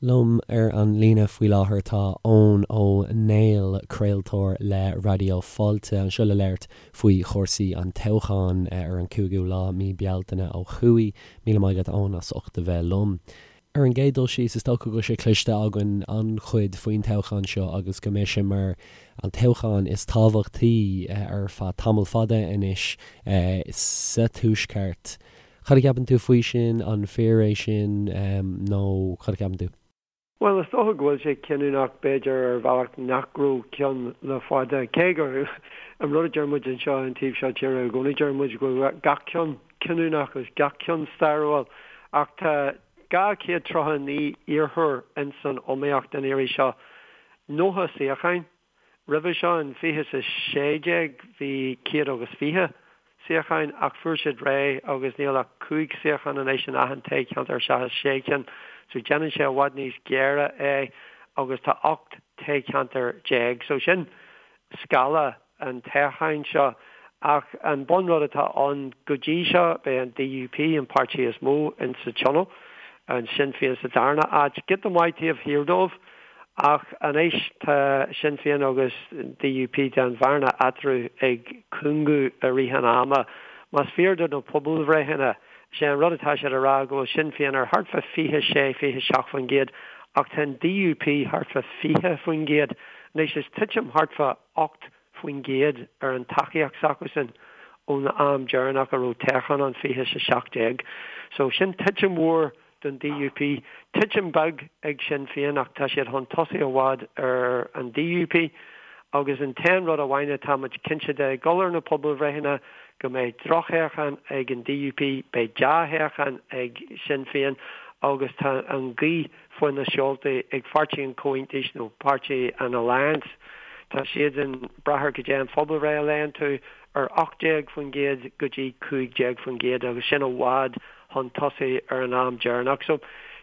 Liom ar an líne faoi láthair tá Eoin Ó Néill, craoltóir le Raidió Fáilte, anseo le labhairt faoi chúrsaí an toghcháin ar an 5ú lá mí Bealtaine ó thuaidh. Míle maith agat Eoin as ucht a bheith liom. Ar an gcéad dul síos, is dócha go bhfuil sé cloiste againn an-chuid faoin toghchán seo agus go mbeidh sé mar an toghchán is tábhachtaí ar feadh tamall fada anois sa Tuaisceart. Cad a cheapann tú faoi sin? An fíor é sin nó cad a cheapann tú? Bhuel, is dócha go bhfuil sé cinniúnach, b'fhéidir, ar bhealach nach raibh ceann le fada, cé gur an rud a deir muid anseo an taobh seo tíre i gcónaí, deir muid go bhfuil gach ceann cinniúnach agus gach ceann stairiúil. Ach tá 239 iarrthóir ins an iomaíocht an iarraidh seo, 90 suíocháin. Roimhe seo in 2016 bhí 120 suíocháin ach fuair siad réidh agus níl ach 5 suíochán anois in achan toghcheantar seachas 6 cinn so déanann sé i bhfad níos géire é agus tá 18 toghcheantar so sin scála an toghcháin seo ach an bunrud atá ann go dtí seo beidh an DUP an páirtí is mó in sa tionól, an Sinn Féin sa darna áit, giota maith taobh thiar dóibh. Ach anois tá Sinn Féin agus DUP, tá an bhearna eatarthu ag cúngú i rith an ama. Más fíor do na pobalbhreitheanna, sé an rud atá siad a rá go bhfuil Sinn Féin ar thart fá 26, 27% ach tá an DUP thart fá 20%. Anois is titim thart fá 8% ar an tacaíocht s'acusan ón am deireanach a raibh toghchán ann, 2017. So sin titim mhór don DUP. Titim beag ag Sinn Féin ach tá siad chun tosaigh i bhfad ar an DUP agus an t-aon rud amháin atá muid cinnte de, ag dul ar na pobalbhreitheanna, go mbeidh drochthoghchán ag an DUP, beidh dea-thoghchán ag Sinn Féin agus tá an ghaoth faoi na seoltaí ag Pháirtí an Chomhaontais nó Páirtí an Alliance. Tá siadsan ag brath ar goidé an phobalbhreith a léann tú, ar 18% go dtí 15% agus sin i bhfad chun tosaigh ar an am deireanach. So,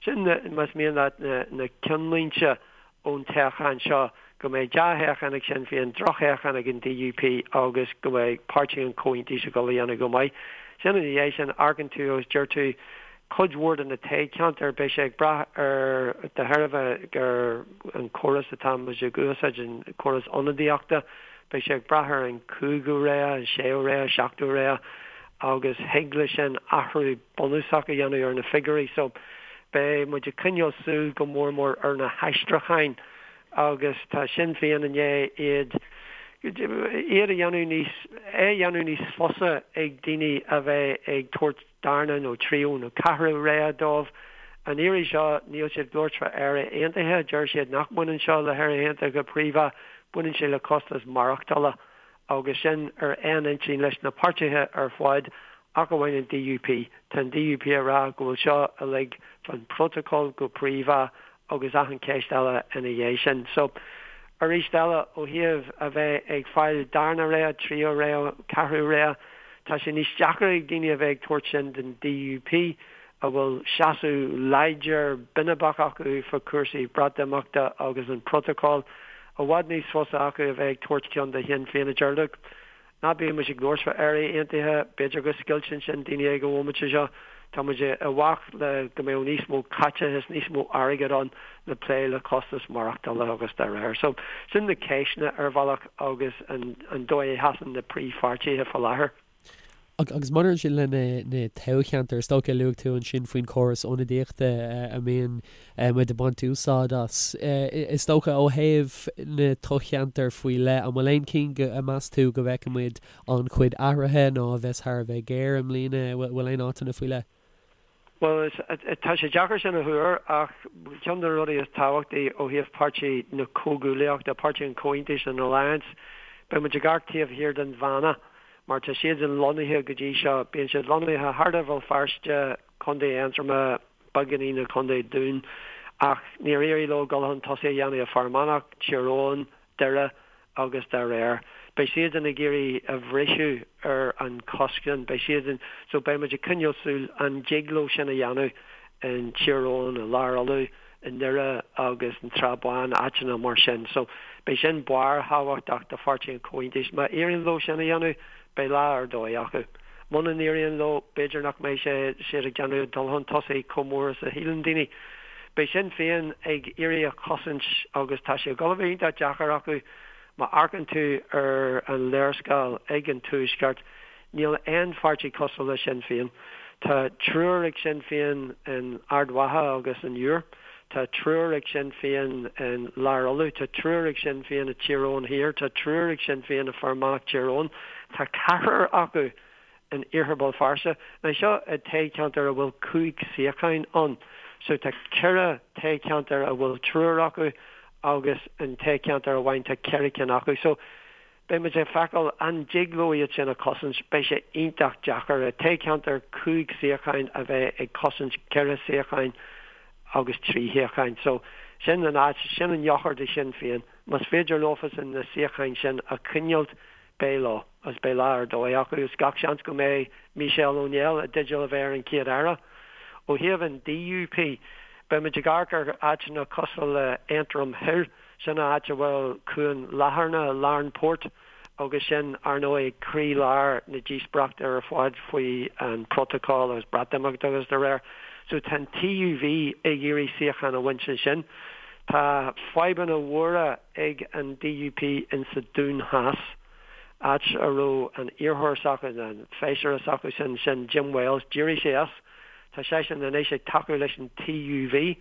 sin, más mian leat, na ceannlínte ón toghchán seo, go mbeidh dea-thoghchán ag Sinn Féin, drochthoghchán ag an DUP agus go mbeidh Páirtí an Chomhaontais ag dul a dhéanamh go maith. Sin ina dhiaidh sin, amharcann tú agus deir tú, cuid mhór de na toghcheantair, beidh sé ag brath ar, de thairbhe ar an chóras atá muid ag úsáid, an córas ionadaíochta, beidh sé ag brath ar an chúigiú rogha, an séú rogha, seachtú rogha. agus thig leis sin athrú bunúsach a dhéanamh ar na figiúirí. So, beidh muid ag coinneáil súil go mór mór ar na haistriúcháin agus tá Sinn Féin i ndiaidh iad iad a dhéanamh níos é a dhéanamh níos fusa ag daoine a bheith ag tabhairt darna nó tríú nó ceathrú rogha dóibh. An iarraidh seo níl siad ag labhairt fá Éire Aontaithe, deir siad nach mbaineann seo le hÉire Aontaithe go príomha, baineann sé le costas maireachtála. agus sin ar aon intinn leis na páirtithe ar fad ach amháin an DUP. Tá an DUP ag rá go bhfuil seo uilig fán bprótacal go príomha agus achan cheist eile ina dhiaidh sin. So, arís eile, ó thaobh a bheith ag fáil darna rogha, tríú rogha, ceathrú rogha, tá sé níos deacra ag daoine a bheith ag tabhairt sin don DUP a bhfuil seasamh láidir binibeach acu fá chúrsaí Breatimeachta agus an prótacal, i bhfad níos fusa acu a bheith ag tabhairt ceann do Shinn Féin a deir look, ná bíodh muid ag labhairt fá Éire Aontaithe, b'fhéidir go scoilteann sin daoine ag an bhomaite seo, tá muid i bhfách le go mbeadh níos mó caiteachais, níos mó airgead ann le plé le costas maireachtála agus dá réir. So, sin na ceisteanna ar bhealach agus an dóigh a sheasann na príomhpháirtithe fá láthair. Agus maidir ansin le na toghcheantair, is dócha, luaigh tú ansin faoin chóras ionadaíochta a mbíonn muid ag baint úsáid as. Is dócha ó thaobh na toghcheantair faoi leith, an bhfuil aon chinn a meas tú go bhfeicfidh muid an-chuid athruithe nó a bheas thar a bheith géar i mbliana? Bhfuil aon áiteanna faoi leith? Bhuel, tá sé deacair sin a thuar ach ceann de na rudaí is tábhachtaí ó thaobh Páirtí na Comhghuaillíochta, Páirtí an Chomhaontais, an Alliance, beidh muid ag amharc taobh thiar den Bhanna. Mar tá siadsan lonnaithe go dtí seo, bíonn siad lonnaithe thart ar Bhéal Feirste, Contae Aontroma, beagáinín i Contae Dún, ach níor éirigh leo dul chun tosaigh a dhéanamh i Fear Manach, Tír Eoghain, Doire agus dá réir. Beidh siadsan ag iarraidh a bhriseadh ar an chosc sin. Beidh siadsan, so beidh muid ag coinneáil súil an dtig leo sin a dhéanamh in Tír Eoghain, i Lár Uladh, i nDoire agus an tSrath Bán, áiteanna mar sin. So, beidh sin barrthábhachtach do Pháirtí an Chomhaontais. Má éiríonn leo sin a dhéanamh, beidh lá ar dóigh acu. Muna n-éiríonn leo, b'fhéidir nach mbeidh sé siad ag déanamh dul chun tosaigh chomh mór is a shíleann daoine. Beidh Sinn Féin ag iarraidh a chosaint agus tá sé ag dul a bheith iontach deacair acu. Má amharcann tú ar an léarscáil ag an Tuaisceart, níl aon pháirtí cosúil le Sinn Féin. Tá triúr ag Sinn Féin in Ard Mhacha agus an Iúr. Tá triúr ag Sinn Féin in Lár Uladh. Tá triúr ag Sinn Féin i Tír Eoghain Thiar. Tá triúr ag Sinn Féin i Fear Manach Tír Eoghain. Tá ceathrar acu in Iarthar Bhéal Feirste. Now seo i toghcheantar a bhfuil 5 suíocháin ann. So tá ceithre toghcheantar a bhfuil triúr acu agus in toghcheantar amháin tá ceithre cinn acu. So beidh muid ag feiceáil an dtig leo iad sin a chosaint. Beidh sé iontach deacair i toghcheantar 5 suíocháin a bheith ag cosaint ceithre suíocháin agus trí shuíocháin. So sin an áit, sin an eochair do Shinn Féin. Más féidir leofasan na suíocháin sin a choinneáilt Beidh leo, agus beidh lá ar dóigh acu, is gach seans go mbeidh Michelle O'Neill i dteideal a bheith ar an Chéad Aire. Ó thaobh an DUP, beidh muid ag amharc ar áiteanna cosúil le Aontroim Thoir, sin an áit a bhfuil Cuan Latharna, Larne Port, agus sin, ar ndóigh, croí-lár na díospóireachta ar fad faoi an Protocol agus Breatimeacht agus dá réir. So tá an TUV ag iarraidh suíochán a bhaint ansin. Tá fadhbanna mhóra ag an DUP in sa Dún Theas, áit a raibh an iarrthóir s'acu, an feisire s'acu sin, sin Jim Wells, d'éirigh sé as. Tá seisean anois ag tacú leis an TUV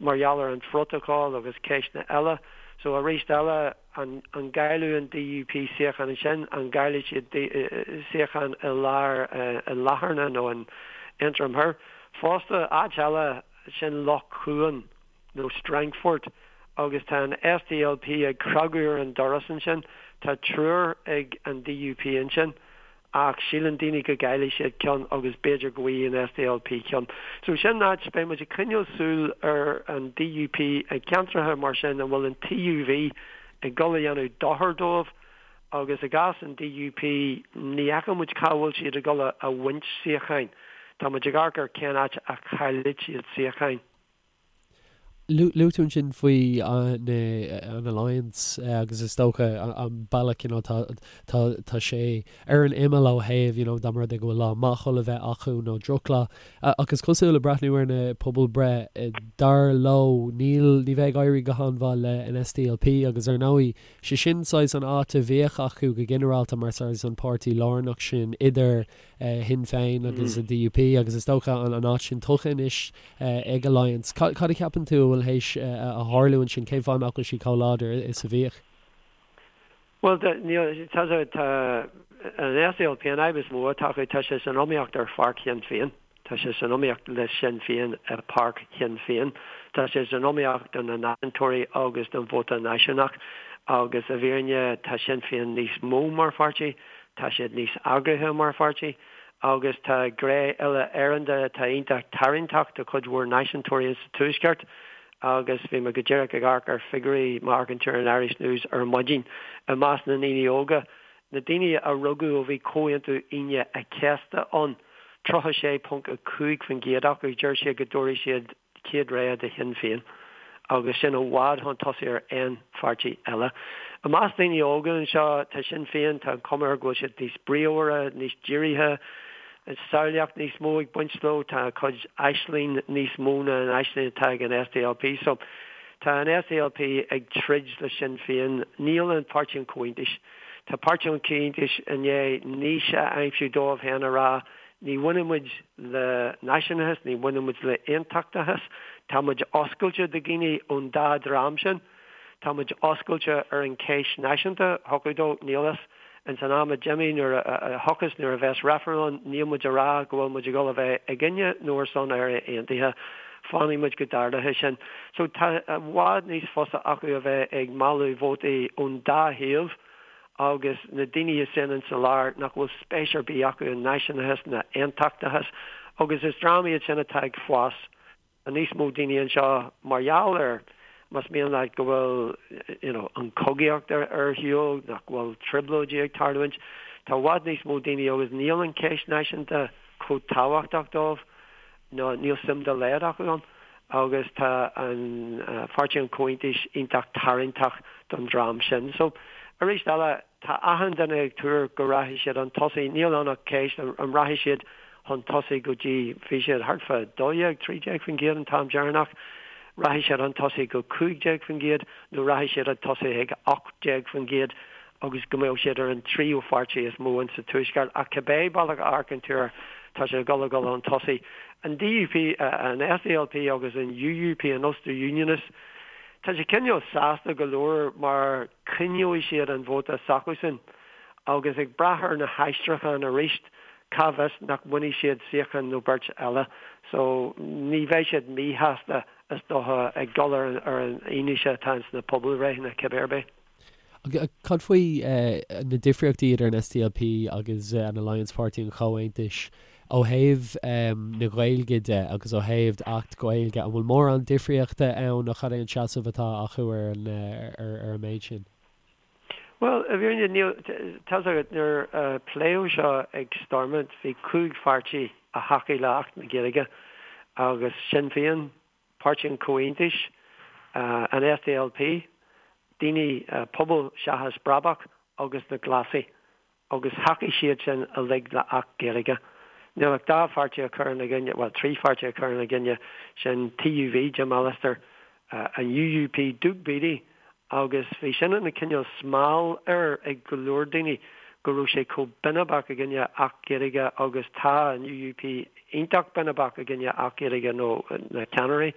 mar gheall ar an phrótocol agus ceisteanna eile. So arís eile, an an gcaillfidh an DUP suíochán ansin, an gcaillfidh siad suíochán i lár i Latharna nó in Aontroim Thoir? Fosta, áit eile, sin Loch Cuan. nó Strangford, agus tá an SDLP ag cnagadh ar an doras ansin. Tá triúr ag an DUP ansin, ach síleann daoine go gcaillfidh siad ceann agus b'fhéidir go bhfaighidh an SDLP ceann. So sin áit, beidh muid ag coinneáil súil ar an DUP i gceantracha mar sin an bhfuil an TUV ag dul a dhéanamh dochar dóibh agus i gcás an DUP ní fheiceann muid cá bhfuil siad ag dul a bhaint suíocháin. Tá muid ag amharc ar cén áit a chaillfidh siad suíocháin. Luaigh tú ansin faoi an Alliance agus is dócha an bealach you know tá tá tá sé ar an imeall ó thaobh you know dá mba rud é go bhfuil lá maith chun a bheith acu nó drochlá. Ach is cosúil ag breathnú ar na pobalbhreith dar leo níl ní bheidh ag éirí go han-mhaith le an SDLP agus ar ndóigh sé sin saghas an áit a bhíodh acu go ginearálta mar saghas an páirtí lárnach sin idir Shinn Féin agus an DUP agus is dócha an áit sin tugtha anois ag Alliance. Cad a cheapann tú a bhfuil théis a tharlú ansin? Cén fáth nach bhfuil siad chomh láidir is a bhíodh? Bhuel, níl, tá, tá an SDLP, an fhadhb is mó atá acu, tá sé san iomaíocht ar pháirc Shinn Féin. Tá sé san iomaíocht le Sinn Féin i bpáirc Shinn Féin. Tá sé san iomaíocht do na náisiúntóirí agus don vóta náisiúnach agus i bhfírinne tá Sinn Féin níos mó mar pháirtí. Tá siad níos eagraithe mar pháirtí agus tá gné uile-Éireann de atá iontach tarraingteach do chuid mhór náisiúntóirí insa Tuaisceart agus bhí mé go díreach ag amharc ar figiúirí má amharcann tú ar an Irish News ar maidin i measc na ndaoine óga, na daoine a rugadh ó bhí Comhaontú Aoine a' Chéasta ann, 36.5% acu, deir siad go dtabharfaidh siad chéad rogha do Shinn Féin agus sin i bhfad chun tosaigh ar aon pháirtí eile. I measc daoine óga anseo, tá Sinn Féin, tá an chuma air go bhfuil siad níos bríomhaire, níos dírithe, samhlaíocht níos mó ag baint leo, tá a gcuid aisling níos mó ná an aisling atá ag an SDLP. So, tá an SDLP ag troid le Sinn Féin. Níl an Páirtí an Chomhaontais. Tá Páirtí an Chomhaontais i ndiaidh niche a aimsiú dóibh féin a rá Ní bhaineann muid le náisiúnachas, ní bhaineann muid le aontachtachas. Tá muid oscailte do dhaoine ón dá dhream sin. Tá muid oscailte ar an cheist náisiúnta, thiocfadh dó, níl fhios. Ins an am a d'imigh, nuair a thiocfas, nuair a bheas reifreann ann, níl muid a rá go bhfuil muid ag dul a bheith i gcoinne nó ar son Éire Aontaithe. Fanfaidh muid go dtarlóidh sin. So tá i bhfad níos fusa acu a bheith ag mealladh vótaí ón dá thaobh. agus na daoine sin insa lár nach bhfuil spéis ar bith acu i náisiúnachas ná aontachtachas, agus is dream iad sin atá ag fás. Tá níos mó daoine anseo mar gheall ar, más mian leat, go bhfuil you know an chogaíocht ar ar shiúl, nach bhfuil trioblóidí ag tarlúint. Tá i bhfad níos mó daoine agus níl an cheist náisiúnta chomh tábhachtach dóibh. nó níl suim dá laghad acu ann agus tá an Pháirtí an Chomhaontais iontach tarraingteach don dream sin. So, arís eile, tá achan duine ag tuar go rachaidh siad chun tosaigh. Níl ann ach ceist an rachaidh siad chun tosaigh go dtí, bhí siad thart fá 12, 13% an t-am deireanach. Rachaidh siad chun tosaigh go 15% nó rachaidh siad chun tosaigh ag 18% agus go mbeadh siad ar an tríú pháirtí is mó in sa Tuaisceart. Ach cibé bealach a amharcann tú air, tá siad ag dul a dhul chun tosaigh. An DUP, an SDLP agus an UUP, an Ulster Unionists, tá siad cineál sásta go leor mar coinneoidh siad an vóta s'acusan agus ag brath ar na haistriúcháin arís, cá bhfios nach mbainfidh siad suíochán nó beirt eile. So ní bheidh siad míshásta is dócha ag dul ar an fhianaise atá ins na pobalbhreitheanna cibé ar bith. Cad faoi na difríochtaí idir an SDLP agus an Alliance Páirtí an Chomhaontais ó thaobh na Gaeilge de agus ó thaobh Acht Gaeilge? An bhfuil mórán difríochta ann nó cad é an seasamh atá acu ar an ar an méid sin? Bhuel, i bhfírinne, níl, tá's agat, nuair a pléadh seo ag Stormont, bhí 5 pháirtí a thacaigh le Acht na Gaeilge agus Sinn Féin, Páirtí an Chomhaontais, an SDLP, Daoine, Pobal Seachas Brabach agus na Glasaigh agus thacaigh siad sin uilig le Acht Gaeilge. Níl ach dá pháirtí a chuir ina gcoinne, bhuel trí pháirtí a chuir ina gcoinne, sin TUV, Jim Allister, an UUP, Doug Beattie Agus bhí sin ina cineál smál air ag go leor daoine go raibh sé chomh binibeach i gcoinne Acht Gaeilge agus tá an UUP iontach binibeach i gcoinne Acht Gaeilge nó na ceannairí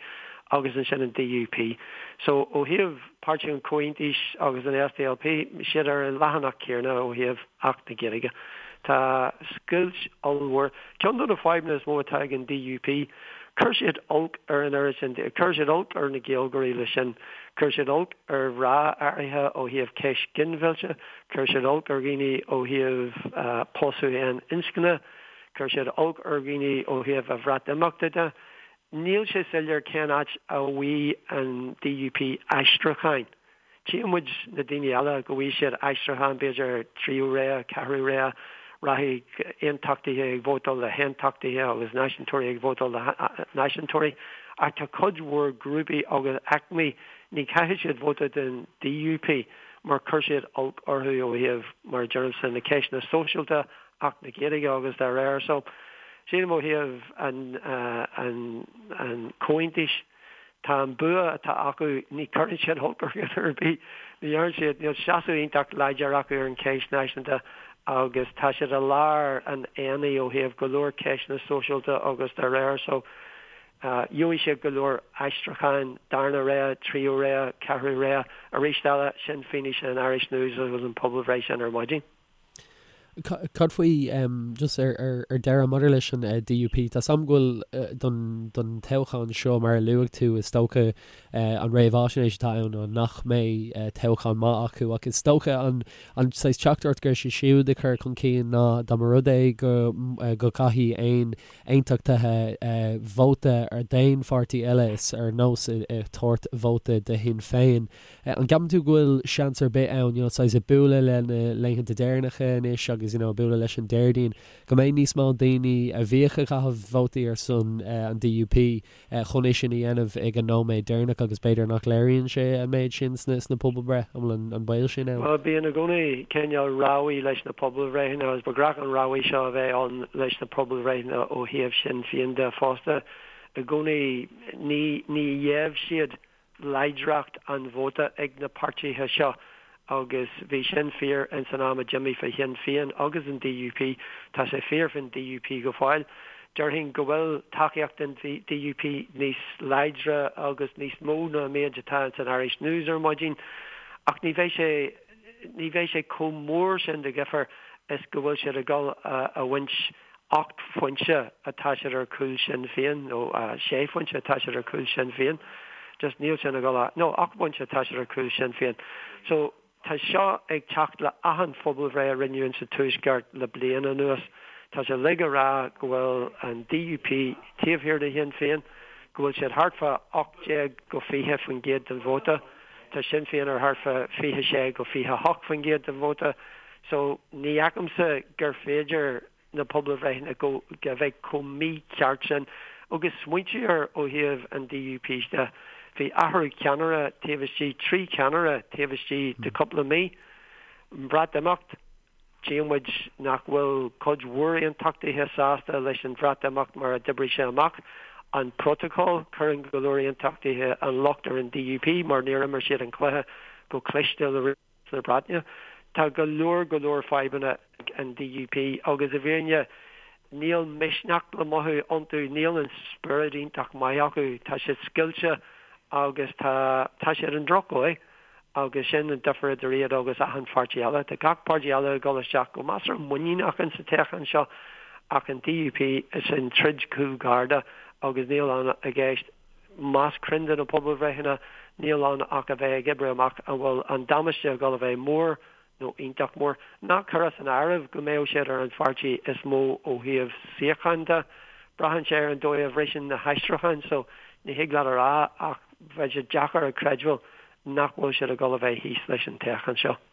agus ansin an DUP. So ó thaobh Páirtí an Chomhaontais agus an SDLP, siad ar an leathanach céanna ó thaobh Acht na Gaeilge. Tá scoilt ollmhór. Ceann de na fadhbanna is mó atá ag an DUP, chuir siad olc ar an oiread sin, chuir siad olc ar na Gaeilgeoirí leis sin. Chuir siad olc ar mhná áirithe ó thaobh ceist ginmhillte, chuir siad olc ar dhaoine ó thaobh pósadh aon inscne, chuir siad olc ar dhaoine ó thaobh an Bhreatimeachta de. Níl sé soiléir cén áit a bhfaighidh an DUP aistriúcháin. Tchíonn muid na daoine eile go bhfaighidh siad aistriúchán, b'fhéidir tríú rogha, ceathrú rogha, rachaidh aontachtaithe ag vótáil le haontachtaithe agus náisiúntóirí ag vótáil le náisiúntóirí. Ach tá cuid mhór grúpaí agus aicmí, ní chaithfidh siad vóta don DUP mar chuir siad olc orthu ó thaobh, mar a deirimse, na ceisteanna sóisialta, Acht na Gaeilge agus dá réir. So, sílim ó thaobh an, an, an Chomhaontais, Tá an bua atá acu, ní chuireann siad olc ar dhuine ar bith, ní dhéanann siad, níl seasamh iontach láidir acu ar an cheist náisiúnta agus tá siad i lár an aonaigh ó thaobh go leor ceisteanna sóisialta agus dá réir. So, gheobhaidh siad go leor aistriúcháin, darna rogha, tríú rogha, ceathrú rogha. Arís eile, sin fianaise an Irish News agus an pobalbhreith sin ar maidin. Cad faoi, just ar deireadh, maidir leis an DUP, tá 's a'm go bhfuil don don toghchán seo, mar a luaigh tú, is dócha an réamhaisnéis atá ann ná nach mbeidh toghchán maith acu ach is dócha an an saghas teachtaireacht go raibh siad siúd ag cur chun cinn ná dá mba rud é go go gcaithfidh aon aontachtaithe vóta ar d'aon pháirtí eile is ar nós ag tabhairt vóta do Shinn Féin. An gceapann tú go bhfuil seans ar bith ann, you know, saghas ag bualadh le na laethanta deireanacha anois agus, you know, ag bualadh leis an Déardaoin, go mbeidh níos mó daoine a bhíodh ag caitheamh vótaí ar son an DUP chun é sin a dhéanamh ag an nóiméad deireanach agus b'fhéidir nach léiríonn sé an méid sin sna, sna pobalbhreith, an bhfuil an, an baol sin ann? Bhuel, bíonn i gcónaí cineál rabhadh leis na pobalbhreitheanna agus ba ghnách an rabhadh seo a bheith ann leis na pobalbhreitheanna ó thaobh Sinn Féin de fosta. I gcónaí ní, ní gheibh siad láidreacht an vóta ag na páirtithe seo agus bhí sin fíor ins an am a d'imigh fé Shinn Féin agus an DUP. Tá sé fíor fén DUP go fóill. Déarfainn go bhfuil tacaíocht an DUP níos láidre agus níos mó ná an méid atá ins an Irish News ar maidin ach ní bheidh sé ní bheidh sé chomh mór sin de dhifear is go bhfuil siad ag dul a bhaint 8 phointe atá siad ar chúl Sinn Féin, nó 6 phointe atá siad ar chúl Sinn Féin. Just níl sin ag dul a, nó 8 bpointe atá siad ar chúl Sinn Féin. So, tá seo ag teacht le achan phobalbhreith a rinneadh insa Tuaisceart le bliain anuas. Tá sé uilig ag rá go bhfuil an DUP taobh thiar de Shinn Féin, go bhfuil siad thart fá 18-20% den vóta. Tá Sinn Féin ar thart fá 26-28% den vóta. So, ní fheicimse gur féidir na pobalbhreitheanna go a bheith chomh mícheart sin. Agus smaointigh air ó thaobh an DUP de, bhí athrú ceannaire taobh istigh, 3 cheannaire taobh istigh de cúpla mí. An Bhreatimeacht, tchíonn muid nach bhfuil cuid mhór aontachtaithe sásta leis an Bhreatimeacht mar a d'oibrigh sé amach. An protocol, cuireann go leor aontachtaithe an locht ar an DUP mar níor imir siad an cluiche go cliste le Rialtas na Breataine. Tá go leor go leor fadhbanna ag an DUP agus i bhfírinne níl misneach le mothú iontu, níl an spiorad iontach maith acu, tá siad scoilte agus tá tá siad i ndrochdhóigh. Agus sin an difear idir iad agus achan pháirtí eile. Tá gach páirtí eile ag dul isteach go measartha muiníneach insa toghchán seo ach an DUP, is an troid cúlgharda agus níl ann i gceist, más cruinn do na pobalbhreitheanna, níl ann ach a bheith ag oibriú amach an bhfuil an damáiste ag dul a bheith mór nó iontach mór. Ná cuir as an áireamh go mbeadh siad ar an pháirtí is mó ó thaobh suíocháin de. Braitheann sé ar an dóigh a bhriseann na haistriúcháin so ní thig leat a rá ach bheadh sé deacair a chreidbheáil nach bhfuil siad ag dul a bheith thíos leis an toghchán seo.